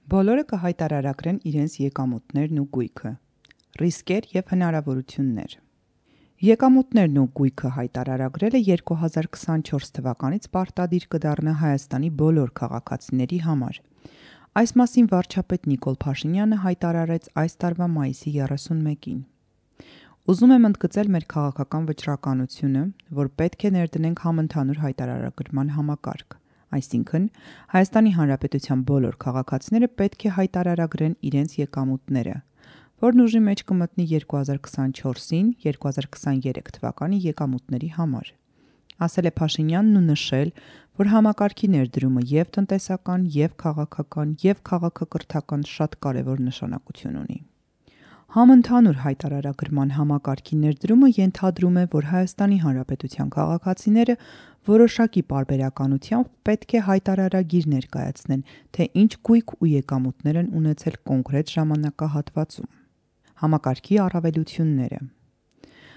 Բոլորը կհայտարարագրեն իրենց եկամուտներն ու գույքը։ Ռիսկեր և հնարավորություններ։ Եկամուտներն ու գույքը հայտարարագրելը 2024 թվականից պարտադիր կդառնա Հայաստանի բոլոր քաղաքացիների համար։ Այս մասին վարչապետ Նիկոլ Փաշինյանը հայտարարեց այս տարվա մայիսի 31-ին։ Ուզում եմ ընդգծել մեր քաղաքական վճռականությունը, որ պետք է ներդնենք համընդհանուր հայտարարագրման համակարգ, այսինքն Հայաստանի Հանրապետության բոլոր քաղաքացիները պետք է հայտարարագրեն իրենց եկամուտները, որն ուժի մեջ կմտնի 2024-ին 2023 թվականի եկամուտների համար։ Ասել է Փաշինյանն ու նշել, որ համակարգի ներդրումը և տնտեսական, և քաղաքական, և քաղաքակրթական շատ կարևոր նշանակություն ունի։ Համընդհանուր հայտարարագրման համակարգի ներդրումը ենթադրում է, որ Հայաստանի Հանրապետության քաղաքացիները որոշակի պարբերականությամբ պետք է հայտարարագիր ներկայացնեն, թե ինչ գույք ու եկամուտներ են ունեցել կոնկրետ ժամանակահատվածում։ Համակարգի առավելությունները։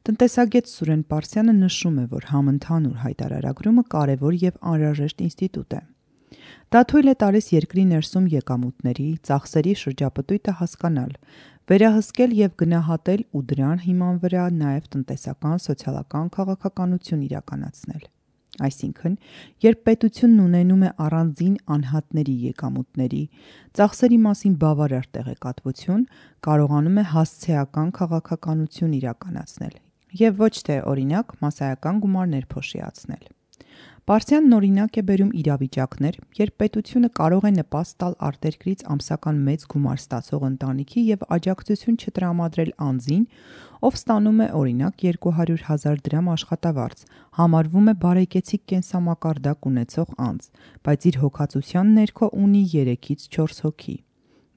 Տնտեսագետ Սուրեն Պարսյանը նշում է, որ համընդհանուր հայտարարագրումը կարևոր և անհրաժեշտ ինստիտուտ է։ Դա թույլ է տալիս երկրի ներսում եկամուտների, ծախսերի շրջապտույտը հասկանալ, վերահսկել և գնահատել ու դրան հիման վրա նաև տնտեսական, սոցիալական քաղաքականություն իրականացնել։ Այսինքն, երբ պետությունն ունենում է առանձին անհատների եկամուտների, ծախսերի մասին բավարար տեղեկատվություն, կարողանում է հասցեական քաղաքականություն իրականացնել և ոչ թե, օրինակ, մասսայական գումարներ փոշիացնել։ Պարսյանն օրինակ է բերում իրավիճակներ, երբ պետությունը կարող է նպաստ տալ արտերկրից ամսական մեծ գումար ստացող ընտանիքի և աջակցություն չտրամադրել անձին, ով ստանում է, օրինակ, 200,000 դրամ աշխատավարձ, համարվում է բարեկեցիկ կենսամակարդակ ունեցող անձ, բայց իր հոգացության ներքո ունի 3-ից 4 հոգի։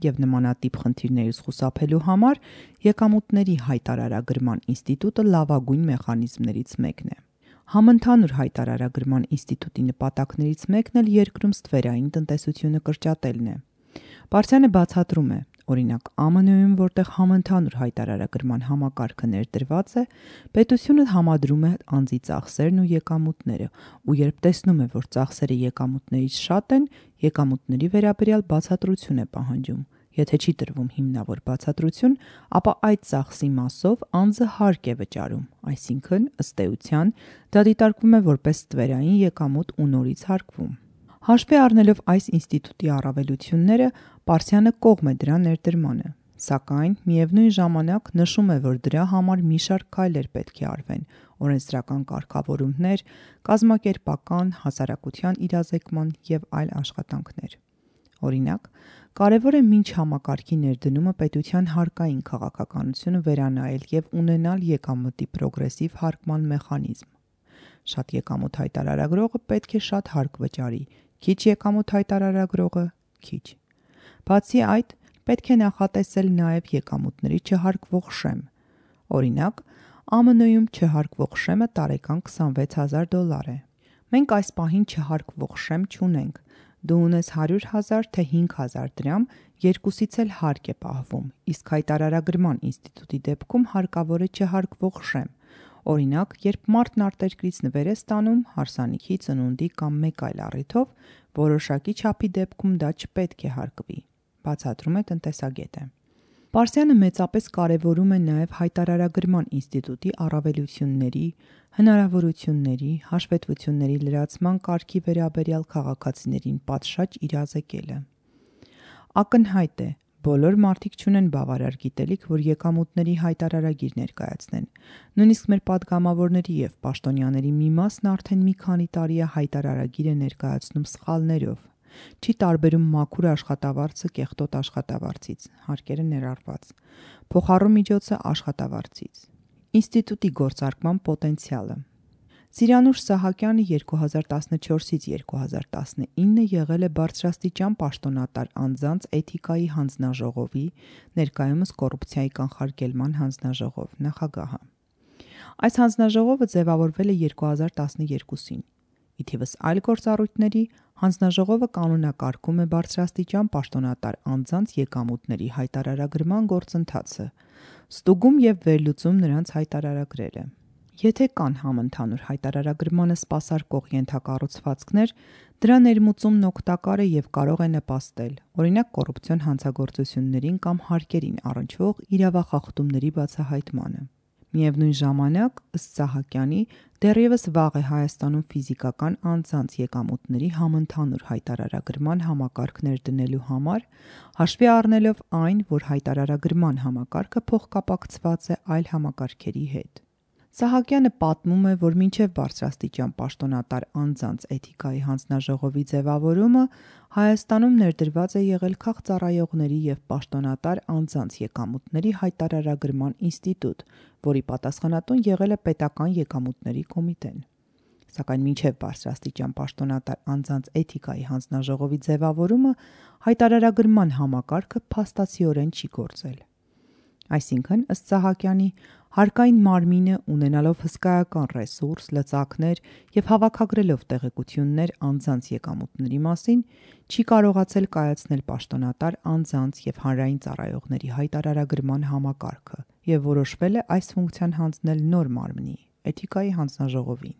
Եվ նմանատիպ խնդիրներից խուսափելու համար եկամուտների հայտարարագրման ինստիտուտը լավագույն մեխանիզմներից մեկն է։ Համընդհանուր հայտարարագրման ինստիտուտի նպատակներից մեկն էլ երկրում ստվերային տնտեսությունը կրճատելն է։ Պարսյանը բացատրում է, օրինակ ԱՄՆ-ում, որտեղ համընդհանուր հայտարարագրման համակարգը ներդրված է, պետությունը համադրում է անձի ծախսերն ու եկամուտները, ու երբ տեսնում է, որ ծախսերը եկամուտներից շատ են, եկամուտների վերաբերյալ բացատրություն է պահանջում։ Եթե չի տրվում հիմնավոր բացատրություն, ապա այդ ծախսի մասով անձը հարկ է վճարում, այսինքն, ըստ էության, դա դիտարկվում է որպես ստվերային եկամուտ ու նորից հարկվում։ Հաշվի առնելով այս ինստիտուտի առավելությունները, Պարսյանը կողմ է դրա ներդրմանը, սակայն միևնույն ժամանակ նշում է, որ դրա համար մի շարք քայլեր պետք է արվեն՝ օրենսդրական կարգավորումներ, կազմակերպական, հասարակության իրազեկման և այլ աշխատանքներ։ Օրինակ, կարևոր է մինչ համակարգի ներդնումը պետության հարկային քաղաքականությունը վերանայել և ունենալ եկամտի պրոգրեսիվ հարկման մեխանիզմ։ Շատ եկամուտ հայտարարագրողը պետք է շատ հարկ վճարի, քիչ եկամուտ հայտարարագրողը՝ քիչ։ Բացի այդ, պետք է նախատեսել նաև եկամուտների չհարկվող շեմ։ Օրինակ, ԱՄՆ-ում չհարկվող շեմը տարեկան $26,000 է։ Մենք այս պահին չհարկվող շեմ չունենք։ Դու ունես 100,000 թե 5,000 դրամ, երկուսից էլ հարկ է պահվում, իսկ հայտարարագրման ինստիտուտի դեպքում հարկավոր է չհարկվող շեմ։ Օրինակ, երբ մարդն արտերկրից նվեր է ստանում, հարսանիքի, ծնունդի կամ մեկ այլ առիթով, որոշակի չափի դեպքում դա չպետք է հարկվի, բացատրում է տնտեսագետը։ Պարսյանը մեծապես կարևորում է նաև հայտարարագրման ինստիտուտի առավելությունների, հնարավորությունների, հաշվետվությունների լրացման կարգի վերաբերյալ քաղաքացիներին պատշաճ իրազեկելը։ Ակնհայտ է, բոլոր մարդիկ չունեն բավարար գիտելիք, որ եկամուտների հայտարարագիր ներկայացնեն։ Նույնիսկ մեր պատգամավորների և պաշտոնյաների մի մասն արդեն մի քանի տարի է հայտարարագիր է ներկայացնում սխալներով, չի տարբերում մաքուր աշխատավարձը կեղտոտ աշխատավարձից, հարկերը ներառված, փոխառու միջոցը աշխատավարձից։ Ինստիտուտի գործարկման պոտենցիալը։ Սիրանուշ Սահակյանը 2014-ից 2019 եղել է բարձրաստիճան պաշտոնատար անձանց էթիկայի հանձնաժողովի, ներկայումս կոռուպցիայի կանխարգելման հանձնաժողով նախագահը։ Այս հանձնաժողովը ձևավորվել է 2012-ին։ Ի թիվս այլ գործառույթների, հանձնաժողովը կանոնակարգում է բարձրաստիճան պաշտոնատար անձանց եկամուտների հայտարարագրման գործընթացը, ստուգում և վերլուծում նրանց հայտարարագրերը։ Եթե կան համընդհանուր հայտարարագրմանը սպասարկող ենթակառուցվածքներ, դրա ներմուծումն օգտակար է և կարող է նպաստել, օրինակ կոռուպցիոն հանցագործություններին կամ հարկերին առնչվող իրավախախտումների բացահայտմանը։ Միևնույն ժամանակ, ըստ Սահակյանի, դեռևս վաղ է Հայաստանում ֆիզիկական անձանց եկամուտների համընդհանուր հայտարարագրման համակարգ ներդնելու համար, հաշվի առնելով այն, որ հայտարարագրման համակարգը փոխկապակցված է այլ համակարգերի հետ։ Սահակյանը պատմում է, որ մինչև բարձրաստիճան պաշտոնատար անձանց էթիկայի հանձնաժողովի ձևավորումը Հայաստանում ներդրված է եղել քաղծառայողների և պաշտոնատար անձանց եկամուտների հայտարարագրման ինստիտուտ, որի պատասխանատուն եղել է Պետական եկամուտների կոմիտեն։ Սակայն մինչև բարձրաստիճան պաշտոնատար անձանց էթիկայի հանձնաժողովի ձևավորումը հայտարարագրման համակարգը փաստացիորեն չի գործել։ Այսինքն, ըստ Սահակյանի, հարկային մարմինը, ունենալով հսկայական ռեսուրս, լծակներ և հավաքագրելով տեղեկություններ անձանց եկամուտների մասին, չի կարողացել կայացնել պաշտոնատար անձանց և հանրային ծառայողների հայտարարագրման համակարգը և որոշվել է այս ֆունկցիան հանձնել նոր մարմնի՝ էթիկայի հանձնաժողովին։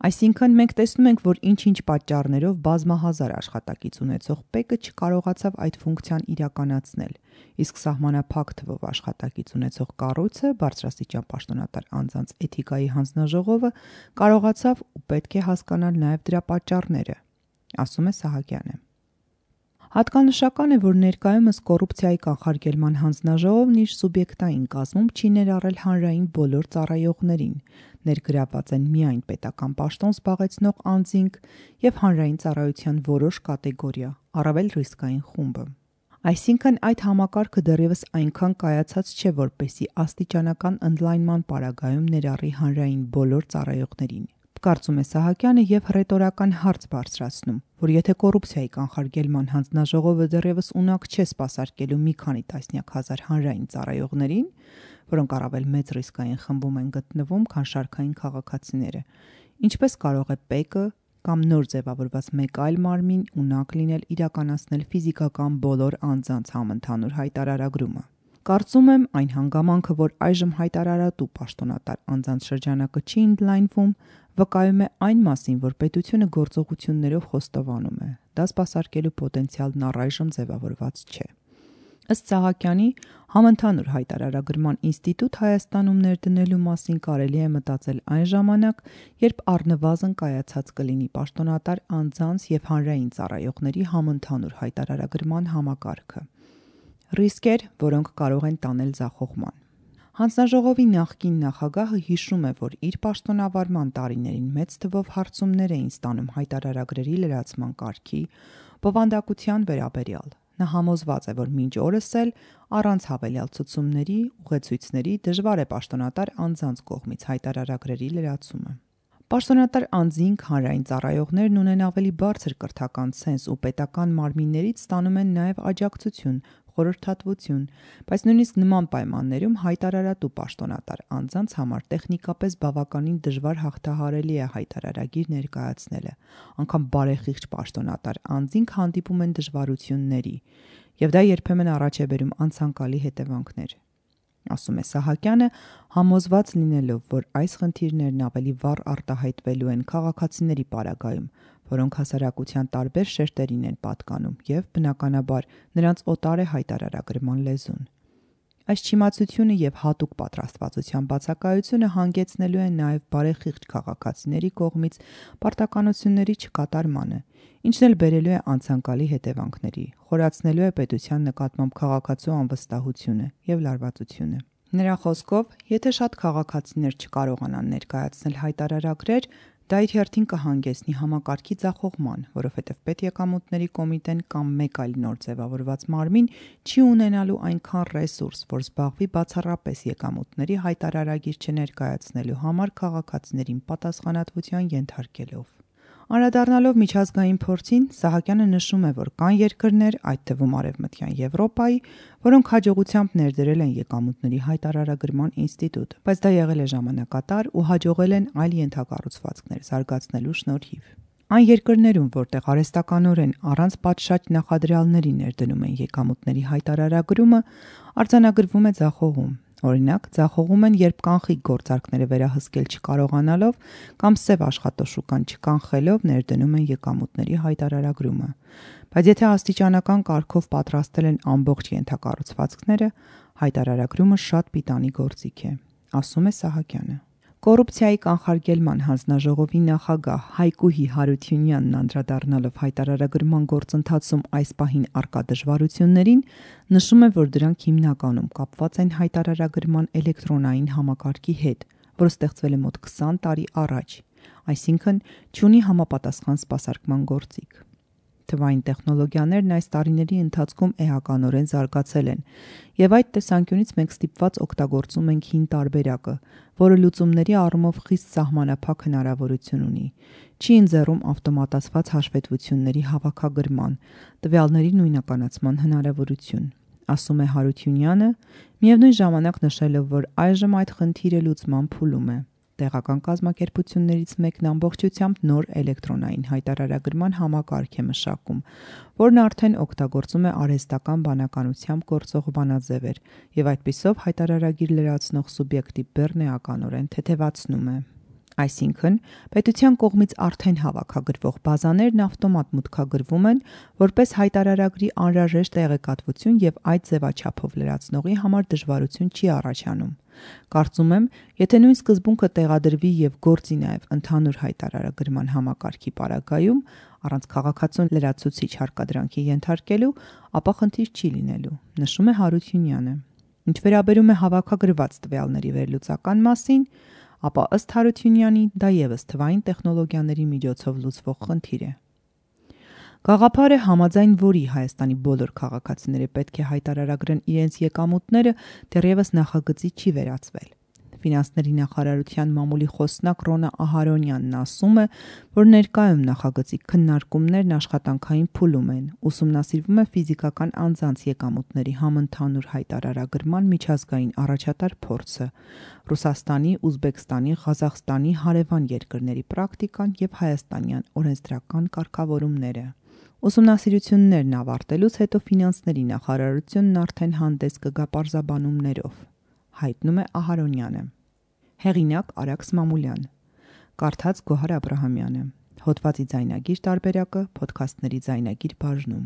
Այսինքն, մենք տեսնում ենք, որ ինչ-ինչ պատճառներով բազմահազար աշխատակից ունեցող ՊԵԿ-ը չկարողացավ այդ ֆունկցիան իրականացնել, իսկ սահմանափակ թվով աշխատակից ունեցող կառույցը, բարձրաստիճան պաշտոնատար անձանց էթիկայի հանձնաժողովը, կարողացավ ու պետք է հասկանալ նաև դրա պատճառները, ասում է Սահակյանը։ Հատկանշական է, որ ներկայումս կոռուպցիայի կանխարգելման հանձնաժողովն իր սուբյեկտային կազմում չի ներառել հանրային բոլոր ծառայողներին, ներգրավված են միայն պետական պաշտոն զբաղեցնող անձինք և հանրային ծառայության որոշ կատեգորիա, առավել ռիսկային խումբը։ Այսինքն, այդ համակարգը դեռևս այնքան կայացած չէ, որպեսզի աստիճանական ընդլայնման պարագայում ներառի հանրային բոլոր ծառայողներին, կարծում է Սահակյանը և հռետորական հարց բարձրացնում, որ եթե կոռուպցիայի կանխարգելման հանձնաժողովը դեռևս ունակ չէ սպասարկելու մի քանի տասնյակ հազար հանրային ծառայողներին, որոնք առավել մեծ ռիսկային խմբում են գտնվում, քան շարքային քաղաքացիները, ինչպես կարող է ՊԵԿ-ը կամ նոր ձևավորված մեկ այլ մարմին ունակ լինել իրականացնել ֆիզիկական բոլոր անձանց համընդհանուր հայտարարագրումը։ Կարծում եմ, այն հանգամանքը, որ այժմ հայտարարատու պաշտոնատար անձանց շրջանակը չի ընդլայնվում, վկայում է այն մասին, որ պետությունը գործողություններով խոստովանում է, դա սպասարկելու պոտենցիալն առայժմ ձևավորված չէ։ Ըստ Սահակյանի, համընդհանուր հայտարարագրման ինստիտուտ Հայաստանում ներդնելու մասին կարելի է մտածել այն ժամանակ, երբ առնվազն կայացած կլինի պաշտոնատար անձանց և հանրային ծառայողների համընդհանուր հայտարարագրման համակարգը։ Ռիսկեր, որոնք կարող են տանել ձախողման։ Հանձնաժողովի նախկին նախագահը հիշում է, որ իր պաշտոնավարման տարիներին մեծ թվով հարցումներ էին ստանում հայտարարագրերի լրացման կարգի, բովանդակության վերաբերյալ։ Նա համոզված է, որ մինչ օրս էլ առանց հավելյալ ցուցումների, ուղեցույցների դժվար է պաշտոնատար անձանց կողմից հայտարարագրերի լրացումը։ Պաշտոնատար անձինք, հանրային ծառայողներն ունեն ավելի բարձր կրթական ցենզ ու պետական մարմիններից ստանում են նաև աջակցություն, խորհրդատվություն, բայց նույնիսկ նման պայմաններում հայտարարատու պաշտոնատար անձանց համար տեխնիկապես բավականին դժվար հաղթահարելի է հայտարարագիր ներկայացնելը, անգամ բարեխիղճ պաշտոնատար անձինք հանդիպում են դժվարությունների, և դա երբեմն առաջ է բերում անցանկալի հետևանքներ, ասում է Սահակյանը, համոզված լինելով, որ այս խնդիրներն ավելի վառ արտահայտվելու են քաղաքացիների պարագայում, որոնք հասարակության տարբեր շերտերին են պատկանում և, բնականաբար, նրանց օտար է հայտարարագրման լեզուն։ Այս չիմացությունը և հատուկ պատրաստվածության բացակայությունը հանգեցնելու են նաև բարեխիղճ քաղաքացիների կողմից պարտականությունների չկատարմանը, ինչն էլ բերելու է անցանկալի հետևանքների, խորացնելու է պետության նկատմամբ քաղաքացու անվստահությունը և լարվածությունը։ Նրա խոսքով, եթե շատ քաղաքացիներ չկարողանան ներկայացնել հայտարարագրեր, դա իր հերթին կհանգեցնի համակարգի ձախողման, որովհետև Պետեկամուտների կոմիտեն կամ մեկ այլ նոր ձևավորված մարմին չի ունենալու այնքան ռեսուրս, որ զբաղվի բացառապես եկամուտների հայտարարագիր չներկայացնելու համար քաղաքացիներին պատասխանատվության ենթարկելով։ Անդրադառնալով միջազգային փորձին, Սահակյանը նշում է, որ կան երկրներ, այդ թվում Արևմտյան Եվրոպայի, որոնք հաջողությամբ ներդրել են եկամուտների հայտարարագրման ինստիտուտ, բայց դա եղել է ժամանակատար ու հաջողել են այլ ենթակառուցվածքներ զարգացնելու շնորհիվ։ Այն երկրներում, որտեղ արհեստականորեն առանց պատշաճ նախադրյալների ներդնում են եկամուտների հայտարարագրումը, արձանագրվում է ձախողում։ Օրինակ, ձախողում են, երբ կանխիկ գործարքները վերահսկել չկարողանալով կամ սև աշխատաշուկան չկանխելով ներդնում են եկամուտների հայտարարագրումը։ Բայց եթե աստիճանական կարգով պատրաստել են ամբողջ ենթակառուցվածքները, հայտարարագրումը շատ պիտանի գործիք է, ասում է Սահակյանը։ Կոռուպցիայի կանխարգելման հանձնաժողովի նախագահ Հայկուհի Հարությունյանն անդրադառնալով հայտարարագրման գործընթացում այս պահին առկա դժվարություններին, նշում է, որ դրանք հիմնականում կապված են հայտարարագրման էլեկտրոնային համակարգի հետ, որը ստեղծվել է մոտ 20 տարի առաջ, այսինքն չունի համապատասխան սպասարկման գործիք։ Թվային տեխնոլոգիաներն այս տարիների ընթացքում էականորեն զարգացել են, եւ այդ տեսանկյունից մենք ստիպված օգտագործում ենք հին տարբերակը, որը լուծումների առումով խիստ սահմանափակ հնարավորություն ունի։ Չի ընձեռում ավտոմատացված հաշվետվությունների հավաքագրման, տվյալների նույնականացման հնարավորություն, ասում է Հարությունյանը, միևնույն ժամանակ նշելով, որ այժմ այդ խնդիրը լուծման փուլում է։ Տեղական կազմակերպություններից մեկն ամբողջությամբ նոր էլեկտրոնային հայտարարագրման համակարգ է մշակում, որն արդեն օգտագործում է արհեստական բանականությամբ գործող բանաձևեր եւ այդպիսով հայտարարագիր լրացնող սուբյեկտի բեռն էականորեն թեթևացնում է։ Այսինքն, պետության կողմից արդեն հավաքագրվող բազաներն ավտոմատ մուտքագրվում են որպես հայտարարագրի անհրաժեշտ տեղեկատվություն եւ այդ ձևաչափով լրացնողի համար դժվարություն չի առաջանում։ Կարծում եմ, եթե նույն սկզբունքը տեղադրվի եւ գործի նաեւ ընդհանուր հայտարարագրման համակարգի պարագայում, առանց քաղաքացուն լրացուցիչ հարկադրանքի ենթարկելու, ապա խնդիր չի լինելու, նշում է Հարությունյանը։ Ինչ վերաբերում է հավաքագրված տվյալների վերլուծական մասին, ապա ըստ Հարությունյանի դա եւս թվային տեխնոլոգիաների միջոցով լուծվող խնդիր է։ Գաղափարը, համաձայն որի Հայաստանի բոլոր քաղաքացիները պետք է հայտարարագրեն իրենց եկամուտները, դեռևս նախագծի չի վերածվել։ Ֆինանսների նախարարության մամուլի խոսնակ Ռոնա Ահարոնյանն ասում է, որ ներկայում նախագծի քննարկումներն աշխատանքային փուլում են, ուսումնասիրվում է ֆիզիկական անձանց եկամուտների համընդհանուր հայտարարագրման միջազգային առաջատար փորձը, Ռուսաստանի, Ուզբեկստանի, Ղազախստանի, հարևան երկրների պրակտիկան եւ հայաստանյան օրենսդրական կարգավորումները։ Ուսումնասիրություններն ավարտելուց հետո ֆինանսների նախարարությունն արդեն հանդես կգա պարզաբանումներով, հայտնում է Ահարոնյանը։ Հեղինակ Արաքս Մամուլյան, կարդաց Գոհար Աբրահամյանը, հոդվածի ձայնագիր տարբերակը Փոդքասթների ձայնագիր բաժնում։